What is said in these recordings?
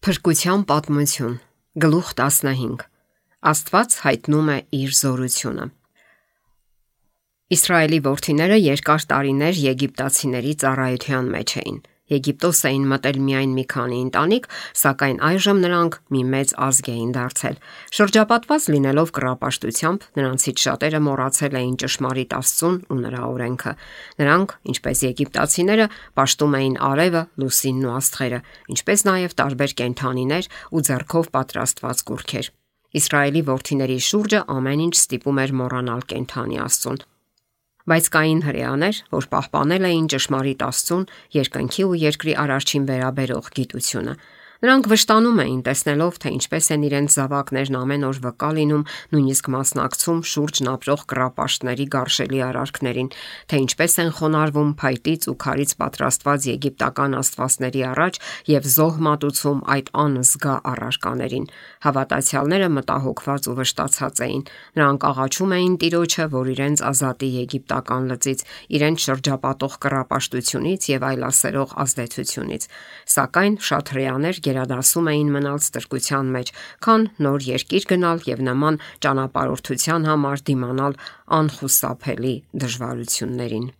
Փրկության պատմություն, գլուխ 15. Աստված հայտնում է իր զորությունը։ Իսրայելի որդիները երկար տարիներ եգիպտացիների ծառայության մեջ էին։ Եգիպտոս էին մտել միայն մի քանի ընտանիք, սակայն այժմ նրանք մի մեծ ազգ էին դարձել։ Շրջապատված լինելով կռապաշտությամբ, նրանցից շատերը մոռացել էին ճշմարիտ Աստծուն ու նրա օրենքը։ Նրանք, ինչպես եգիպտացիները, պաշտում էին արևը, լուսինն ու աստղերը, ինչպես նաև տարբեր կենդանիներ ու ձեռքով պատրաստված կուռքեր։ Իսրայելի որդիների շուրջը ամեն ինչ ստիպում էր մոռանալ կենդանի Աստծուն։ Բայց կային հրեաներ, որ պահպանել էին ճշմարիտ Աստծուն, երկնքի ու երկրի արարչին վերաբերող գիտությունը։ Նրանք վշտանում էին, տեսնելով, թե ինչպես են իրենց զավակներն ամեն օր վկա լինում, նույնիսկ մասնակցում շուրջն ապրող կռապաշտների գարշելի արարքներին, թե ինչպես են խոնարհվում փայտից ու քարից պատրաստված եգիպտական աստվածների առաջ եւ զոհ մատուցում այդ անզգա առարկաներին։ Հավատացյալները մտահոգված ու վշտացած էին։ Նրանք աղաչում էին Տիրոջը, որ իրենց ազատի եգիպտական լծից, իրենց շրջապատող կռապաշտությունից եւ այլասերող ազդեցությունից։ Սակայն շատ հրեաներ գերադասում էին մնալ ստրկության մեջ, քան նոր երկիր գնալ եւ նման ճանապարհորդության համար դիմանալ անխուսափելի դժվարություններին։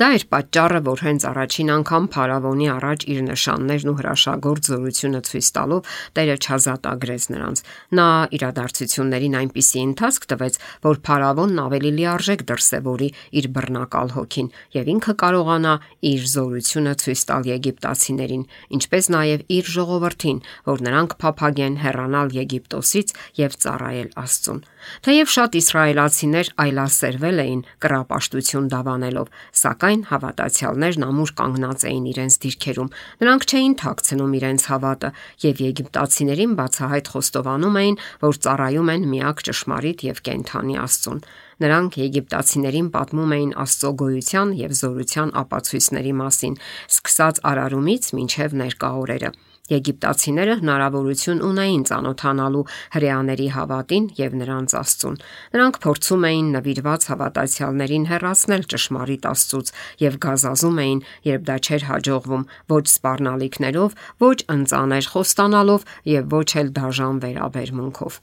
Դա էր պատճառը, որ հենց առաջին անգամ փարավոնի առաջ իր նշաններն ու հրաշագործ զորությունը ցույց տալով Տերը չազատագրեց նրանց։ Նա իրադարձություններին այնպիսի ընթացք տվեց, որ փարավոնն ավելի լիարժեք դրսևորի իր բռնակալ հոգին եւ ինքը կարողանա իր զորությունը ցույց տալ եգիպտացիներին, ինչպես նաև իր ժողովրդին, որ նրանք փափագեն հեռանալ Եգիպտոսից եւ ծառայել Աստծուն։ Թեև շատ իսրայելացիներ այլասերվել էին կռապաշտություն դավանելով, սակայն հավատացյալներն ամուր կանգնած էին իրենց դիրքերում։ Նրանք չէին թաքցնում իրենց հավատը եւ եգիպտացիներին բացահայտ խոստովանում էին, որ ծառայում են միակ ճշմարիտ եւ կենդանի Աստծուն։ Նրանք եգիպտացիներին պատմում էին Աստծո գոյության եւ զորության ապացույցների մասին, սկսած արարումից մինչեւ ներկա օրերը։ Եգիպտացիները հնարավորություն ունեին ծանոթանալու հրեաների հավատին եւ նրանց Աստծուն։ Նրանք փորձում էին նվիրված հավատացյալներին հեռացնել ճշմարիտ Աստծուց եւ գազազում էին, երբ դա չէր հաջողվում, ոչ սպառնալիքներով, ոչ ընծաներ խոստանալով եւ ոչ էլ դաժան վերաբերմունքով։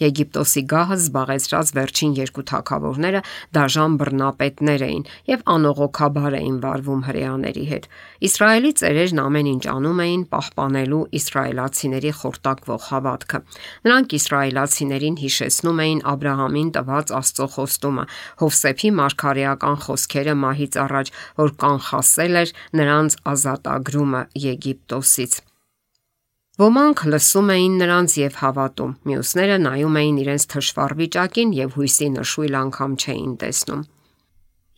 Եգիպտոսի գահը զբաղեցրած վերջին երկու թագավորները դաժան բռնապետներ էին եւ անողոքաբար էին վարվում հրեաների հետ։ Իսրայելի ծերերն ամեն ինչ անում էին պահպանելու իսրայելացիների խորտակվող հավատքը։ Նրանք իսրայելացիներին հիշեցնում էին Աբրահամին տված Աստծո խոստումը, Հովսեփի մարգարեական խոսքերը մահից առաջ, որ կանխասել էր նրանց ազատագրումը Եգիպտոսից։ Ոմանք լսում էին նրանց եւ հավատում, մյուսները նայում էին իրենց թշվառ վիճակին եւ հույսի նշույլ անգամ չէին տեսնում։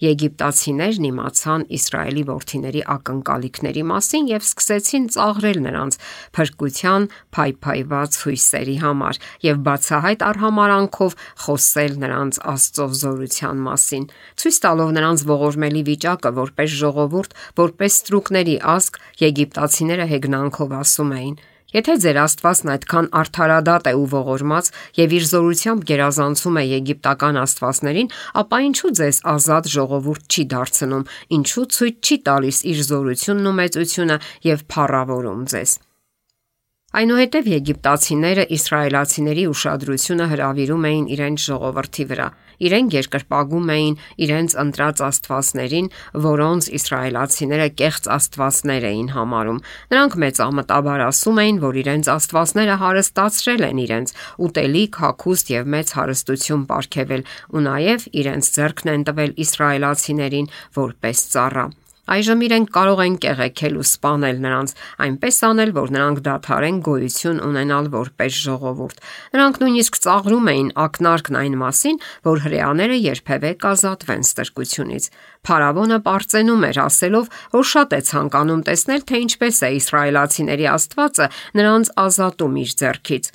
Եգիպտացիներն իմացան Իսրայելի որդիների ակնկալիքների մասին եւ սկսեցին ծաղրել նրանց փրկության փայփայված հույսերի համար եւ բացահայտ արհամարանքով խոսել նրանց Աստծո զորության մասին, ցույց տալով նրանց ողորմելի վիճակը որպես ժողովուրդ, որպես ստրուկների ազգ։ Եգիպտացիները հեգնանքով ասում էին. Եթե ձեր Աստվածն այդքան արդարադատ է ու ողորմած եւ իր զորությամբ գերազանցում է եգիպտական աստվածներին, ապա ինչու ձեզ ազատ ժողովուրդ չի դարձնում, ինչու ցույց չի տալիս իր զորությունն ու մեծությունը եւ փառավորում ձեզ։ Այնուհետև եգիպտացիները իսրայելացիների ուշադրությունը հրավիրում էին իրենց ժողովրդի վրա։ Իրենք երկրպագում էին իրենց ընտրած աստվածներին, որոնց իսրայելացիները կեղծ աստվածներ էին համարում։ Նրանք մեծամտաբար ասում էին, որ իրենց աստվածները հարստացրել են իրենց, ուտելիք, հագուստ եւ մեծ հարստություն պարգևել, ու նաեւ իրենց ձեռքն են տվել իսրայելացիներին որպես ծառա։ Այժմ իրենք կարող են կեղեքել ու սպանել նրանց, այնպես անել, որ նրանք դադարեն գոյություն ունենալ որպես ժողովուրդ։ Նրանք նույնիսկ ծաղրում էին ակնարկն այն մասին, որ հրեաները երբևէ կազատվեն ստրկությունից։ Փարավոնը պարծենում էր, ասելով, որ շատ է ցանկանում տեսնել, թե ինչպես է իսրայելացիների Աստվածը նրանց ազատում իր ձեռքից։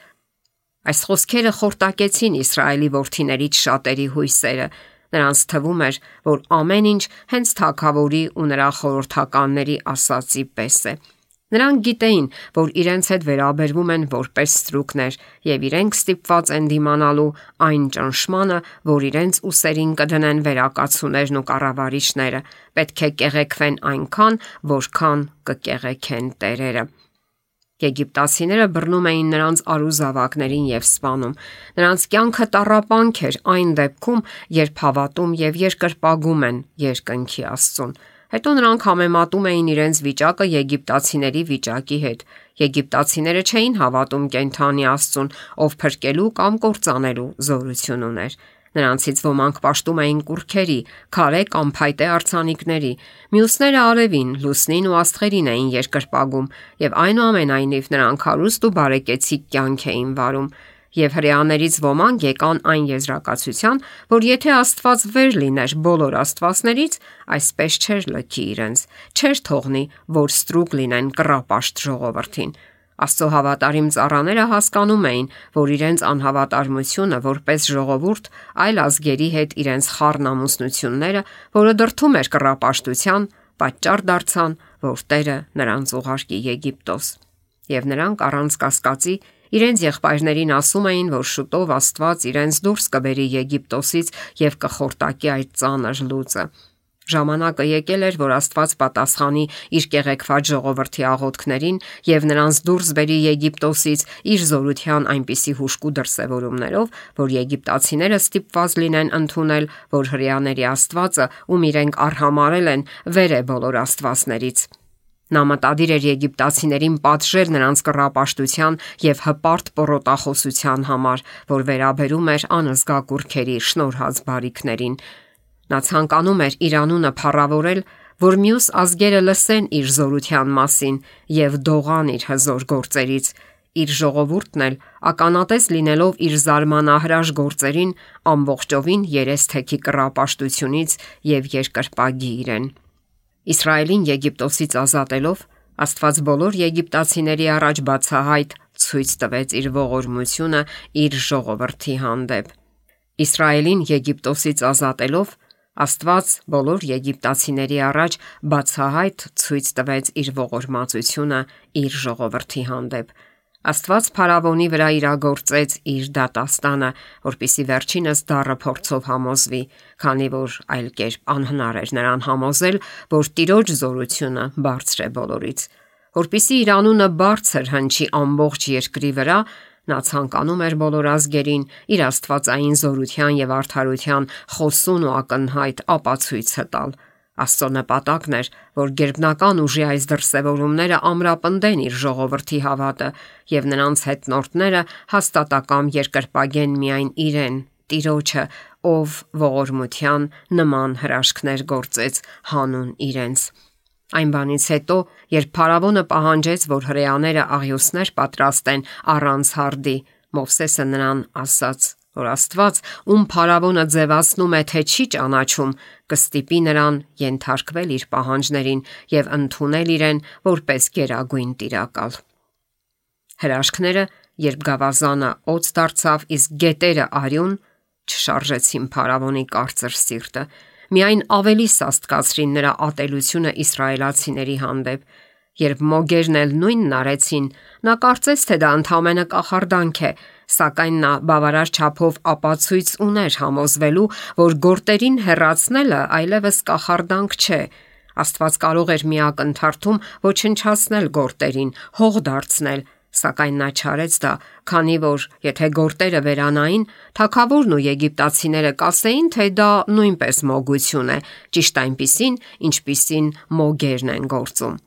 Այս խոսքերը խորտակեցին Իսրայելի որդիներից շատերի հույսերը։ Նրանց թվում էր, որ ամեն ինչ հենց թագավորի ու նրա խորհրդականների ասացի պես է։ Նրանք գիտեին, որ իրենց հետ վերաբերվում են որպես ստրուկներ եւ իրենք ստիպված են դիմանալու այն ճնշմանը, որ իրենց ուսերին կդնեն վերակացուներն ու կառավարիչները։ Պետք է կեղեքվեն այնքան, որքան կկեղեքեն տերերը։ Եգիպտացիները բռնում էին նրանց արուզավակներին եւ սպանում։ Նրանց կյանքը տառապանք էր այն դեպքում, երբ հավատում եւ երկրպագում են երկնքի Աստծուն։ Հետո նրանք համեմատում էին իրենց վիճակը եգիպտացիների վիճակի հետ։ Եգիպտացիները չէին հավատում կենդանի Աստծուն, ով փրկելու կամ կործանելու զորություն ուներ։ Նրանցից ոմանք պաշտում էին կուռքերի, քարե կամ փայտե արձանիկների, մյուսները արևին, լուսնին ու աստղերին էին երկրպագում, եւ այնուամենայնիվ նրանք հարուստ ու բարեկեցիկ կյանք էին վարում։ Եվ հրեաներից ոմանք եկան այն եզրակացության, որ եթե Աստված վեր լիներ բոլոր աստվածներից, այսպես չէր լքի իրենց, չէր թողնի, որ ստրուկ լինեն կռապաշտ ժողովրդին։ Աստծո հավատարիմ ծառաները հասկանում էին, որ իրենց անհավատարմությունը որպես ժողովուրդ այլ ազգերի հետ իրենց խառն ամուսնությունները, որը դրդում էր կռապաշտության, պատճառ դարձան, որ Տերը նրանց ուղարկի Եգիպտոս։ Եվ նրանք առանց կասկածի իրենց եղբայրներին ասում էին, որ շուտով Աստված իրենց դուրս կբերի Եգիպտոսից եւ կխորտակի այդ ծանր լուծը։ Ժամանակը եկել էր, որ Աստված պատասխանի իր կեղեքված ժողովրդի աղոթքներին եւ նրանց դուրս բերի Եգիպտոսից իր զորության այնպիսի հուժկու դրսևորումներով, որ եգիպտացիները ստիպված լինեն ընդունել, որ հրեաների Աստվածը, ում իրենք արհամարել են, վեր է բոլոր աստվածներից։ Նա մտադիր էր եգիպտացիներին պատժել նրանց կռապաշտության եւ հպարտ պոռոտախոսության համար, որ վերաբերում էր անզգա կուռքերի շնորհած բարիքներին։ Նա ցանկանում էր իր անունը փառավորել, որ մյուս ազգերը լսեն իր զորության մասին եւ դողան իր հզոր գործերից։ Իր ժողովուրդն էլ ականատես լինելով իր զարմանահրաշ գործերին, ամբողջովին երես թեքի կռապաշտությունից եւ երկրպագի իրեն։ Իսրայելին Եգիպտոսից ազատելով Աստված բոլոր եգիպտացիների առաջ բացահայտ ցույց տվեց իր ողորմությունը իր ժողովրդի հանդեպ։ Իսրայելին Եգիպտոսից ազատելով Աստված բոլոր եգիպտացիների առաջ բացահայտ ցույց տվեց իր ողորմածությունը իր ժողովրդի հանդեպ։ Աստված Փարավոնի վրա իրագործեց իր դատաստանը, որպիսի վերջինս դառը փորձով համոզվի, քանի որ այլ կերպ անհնար էր նրան համոզել, որ Տիրոջ զորությունը բարձր է բոլորից։ Որպիսի իր անունը բարձր հնչի ամբողջ երկրի վրա, նա ցանկանում էր բոլոր ազգերին իր աստվածային զորության եւ արդարության խոսուն ու ակնհայտ ապացույցը տալ։ Աստծո նպատակն էր, որ գերբնական ուժի այս դրսևորումները ամրապնդեն իր ժողովրդի հավատը եւ նրանց հետնորդները հաստատակամ երկրպագեն միայն իրեն, Տիրոջը, ով ողորմության նման հրաշքներ գործեց հանուն իրենց։ Այն բանից հետո, երբ Փարավոնը պահանջեց, որ հրեաները աղյուսներ պատրաստեն առանց հարդի, Մովսեսը նրան ասաց, որ Աստված, ում Փարավոնը ձևացնում է, թե չի ճանաչում, կստիպի նրան ենթարկվել իր պահանջներին եւ ընդունել իրեն որպես գերագույն տիրակալ։ Հրաշքները, երբ գավազանը օձ դարձավ, իսկ գետերը արյուն, չշարժեցին Փարավոնի կարծր սիրտը, միայն ավելի սաստկացրին նրա ատելությունը իսրայելացիների հանդեպ։ Երբ մոգերն էլ նույնն արեցին, նա կարծեց, թե դա ընդամենը կախարդանք է, սակայն նա բավարար չափով ապացույց ուներ համոզվելու, որ գործերին հեռացնելը այլևս կախարդանք չէ։ Աստված կարող էր մի ակնթարթում ոչնչացնել գործերին, հող դարձնել, սակայն նա չարեց դա, քանի որ եթե գործերը վերանային, թագավորն ու եգիպտացիները կասեին, թե դա նույնպես մոգություն է, ճիշտ այնպիսին, ինչպիսին մոգերն են գործում։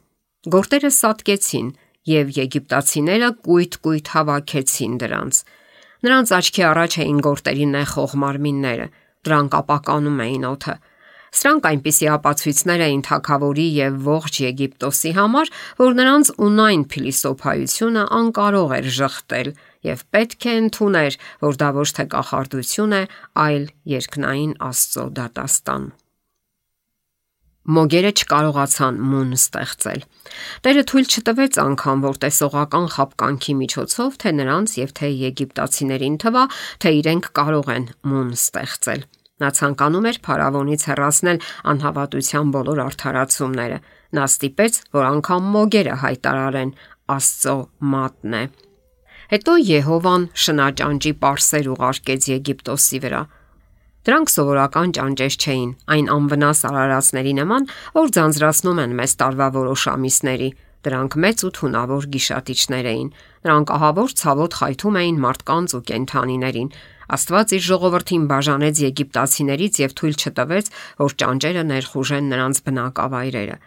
Գործերը սատկեցին եւ եգիպտացիները կույտ հավաքեցին դրանց։ Նրանց աչքի առաջ էին գործերի նեխող մարմինները, դրանք ապականում էին օդը։ Սրանք այնպիսի ապացույցներ էին թագավորի եւ ողջ Եգիպտոսի համար, որ նրանց ունայն փիլիսոփայությունը անկարող էր ժխտել եւ պետք է ընդուներ, որ դա ոչ թե կախարդություն է, այլ երկնային Աստծո դատաստան։ Մոգերը չկարողացան մուն ստեղծել։ Տերը թույլ չտվեց անգամ, որ տեսողական խապկանքի միջոցով թե նրանց եւ թե եգիպտացիներին թվա, թե իրենք կարող են մուն ստեղծել։ Նա ցանկանում էր Փարավոնից հեռացնել անհավատության բոլոր արդարացումները։ Նա ստիպեց, որ անգամ մոգերը հայտարարեն Աստծո մատն է։ Հետո Եհովան շնաճանճի պարսեր ուղարկեց Եգիպտոսի վրա։ Դրանք սովորական ճանճեր չէին, այն անվնաս արարածների նման, որ ձանձրացնում են մեզ տարվա որոշ ամիսների, Դրանք մեծ ու թունավոր գիշատիչներ էին։ Նրանք ահավոր ցավոտ խայթում էին մարդկանց ու կենդանիներին։ Աստված իր ժողովրդին բաժանեց եգիպտացիներից եւ թույլ չտվեց, որ ճանճերը ներխուժեն նրանց բնակավայրերը։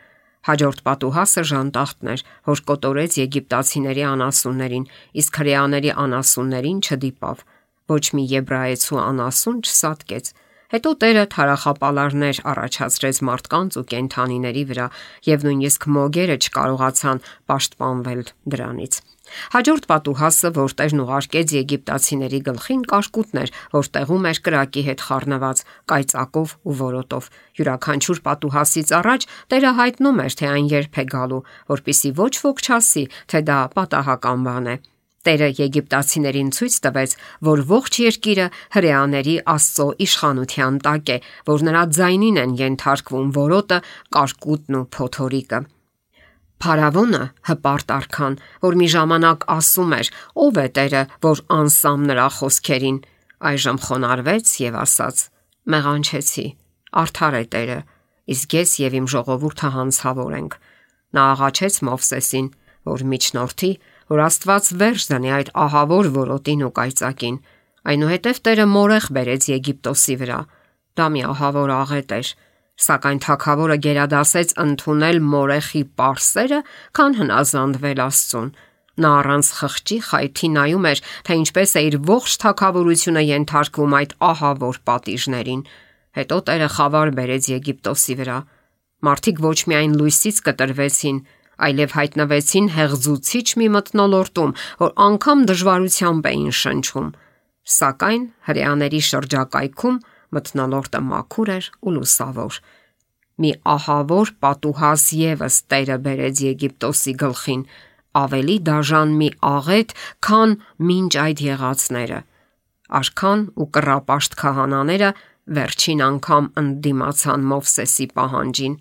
Հաջորդ պատուհասը ժանտախտն էր, որ կոտորեց եգիպտացիների անասուններին, իսկ հրեաների անասուններին չդիպավ։ Ոչ մի եբրայեցու անասուն չսատկեց։ Հետո Տերը թարախապալարներ առաջացրեց մարդկանց ու կենդանիների վրա, եւ նույնիսկ մոգերը չկարողացան պաշտպանվել դրանից։ Հաջորդ պատուհասը, որ Տերն ուղարկեց եգիպտացիների գլխին, կարկուտն էր, որ տեղում էր կրակի հետ խառնված, կայծակով ու որոտով։ Յուրաքանչյուր պատուհասից առաջ Տերը հայտնում էր, թե այն երբ է գալու, որpիսի ոչ ոք չասի, թե դա պատահական բան է։ Տերը եգիպտացիներին ցույց տվեց, որ ողջ երկիրը հրեաների Աստծո իշխանության տակ է, որ նրա ձայնին են ենթարկվում որոտը, կարկուտն ու փոթորիկը։ Փարավոնը հպարտ արքան, որ մի ժամանակ ասում էր. «Ո՞վ է Տերը, որ անսամ նրա խոսքերին», այժմ խոնարհվեց եւ ասաց. «Մեղանչեցի, արդար է Տերը, իսկ ես եւ իմ ժողովուրդը հանցավոր ենք»։ Նա աղաչեց Մովսեսին, որ միջնորդի, որ Աստված վերջ դնի այդ ահավոր որոտին ու կայծակին։ Այնուհետև Տերը մորեղ բերեց Եգիպտոսի վրա։ Դա մի ահավոր աղետ էր, սակայն թագավորը գերադասեց ընդունել մորեխի պարսերը, քան հնազանդվել Աստծուն։ Նա առանց խղճի խայթի նայում էր, թե ինչպես է իր ողջ թագավորությունը ենթարկվում այդ ահավոր պատիժներին։ Հետո Տերը խավար բերեց Եգիպտոսի վրա։ Մարդիկ ոչ միայն լույսից կտրվեցին, այլև հայտնվեցին հեղձուցիչ մի մթնոլորտում, որ անգամ դժվարությամբ էին շնչում։ Սակայն հրեաների շրջակայքում մթնոլորտը մաքուր էր ու լուսավոր։ Մի ահավոր պատուհաս եւս Տերը բերեց Եգիպտոսի գլխին, ավելի դաժան մի աղետ, քան մինչ այդ եղածները։ Արքան ու կռապաշտ քահանաները վերջին անգամ ընդդիմացան Մովսեսի պահանջին։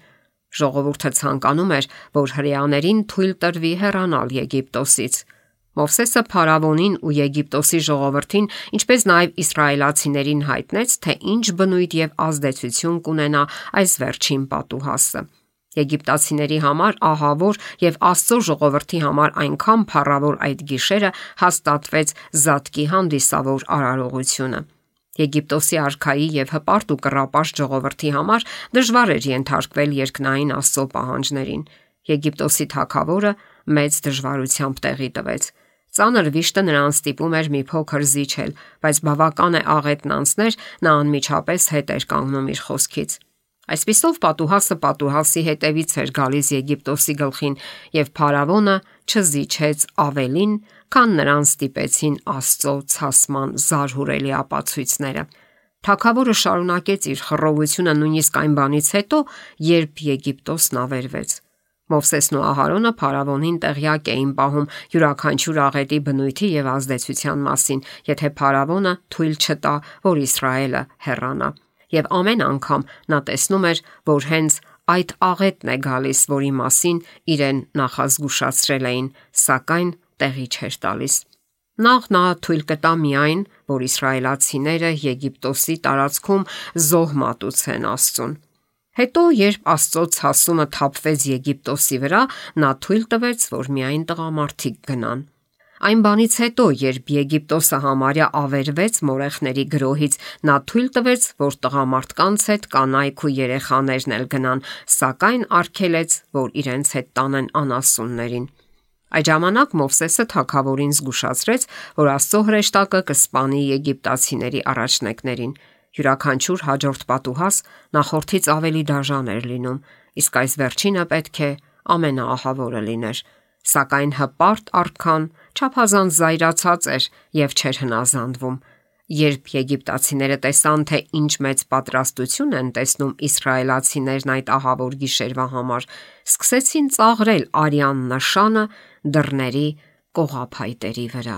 Ժողովուրդը ցանկանում էր, որ հրեաներին թույլ տրվի հեռանալ Եգիպտոսից։ Մովսեսը Փարավոնին ու Եգիպտոսի ժողովրդին, ինչպես նաև իսրայելացիներին հայտնեց, թե ինչ բնույթ եւ ազդեցություն կունենա այս վերջին պատուհասը։ Եգիպտացիների համար ահավոր եւ Աստծո ժողովրդի համար այնքան փառավոր այդ գիշերը հաստատվեց զատկի հանդիսավոր արարողությունը։ Եգիպտոսի արքայի եւ հպարտ ու կռապաշտ ժողովրդի համար դժվար էր ենթարկվել երկնային Աստծո պահանջներին։ Եգիպտոսի թագավորը մեծ դժվարությամբ տեղի տվեց։ Ծանր վիշտը նրան ստիպում էր մի փոքր զիջել, բայց բավական է աղետն անցներ, նա անմիջապես հետ էր կանգնում իր խոսքից։ Այսպիսով պատուհասը պատուհասի հետևից էր գալիս Եգիպտոսի գլխին, եւ Փարավոնը չզիջեց ավելին, քան նրան ստիպեցին Աստծո ցասման զարհուրելի ապացույցները։ Թագավորը շարունակեց իր խռովությունը նույնիսկ այն բանից հետո, երբ Եգիպտոսն ավերվեց։ Մովսեսն ու Ահարոնը Փարավոնին տեղյակ էին պահում յուրաքանչյուր աղետի բնույթի եւ ազդեցության մասին, եթե Փարավոնը թույլ չտա, որ Իսրայելը հեռանա։ Եվ ամեն անգամ նա տեսնում էր, որ հենց այդ աղետն է գալիս, որի մասին իրեն նախազգուշացրել էին, սակայն տեղի չէր տալիս։ Նախ նա թույլ կտա միայն, որ իսրայելացիները Եգիպտոսի տարածքում զոհ մատուցեն Աստծուն։ Հետո, երբ Աստծո ցասումը թափվեց Եգիպտոսի վրա, նա թույլ տվեց, որ միայն տղամարդիկ գնան։ Այն բանից հետո, երբ Եգիպտոսը համարյա ավերվեց մորեխների գրոհից, նա թույլ տվեց, որ տղամարդկանց հետ կանայք ու երեխաներն էլ գնան, սակայն արգելեց, որ իրենց հետ տանեն անասուններին։ Այդ ժամանակ Մովսեսը թագավորին զգուշացրեց, որ Աստծո հրեշտակը կսպանի եգիպտացիների առաջնեկներին։ Յուրաքանչյուր հաջորդ պատուհաս նախորդից ավելի դաժան էր լինում, իսկ այս վերջինը պետք է ամենաահավորը լիներ։ Սակայն հպարտ արքան չափազանց զայրացած էր եւ չէր հնազանդվում։ Երբ եգիպտացիները տեսան, թե ինչ մեծ պատրաստություն են տեսնում իսրայելացիներն այդ ահավոր գիշերվա համար, սկսեցին ծաղրել արյան նշանը դռների կողափայտերի վրա։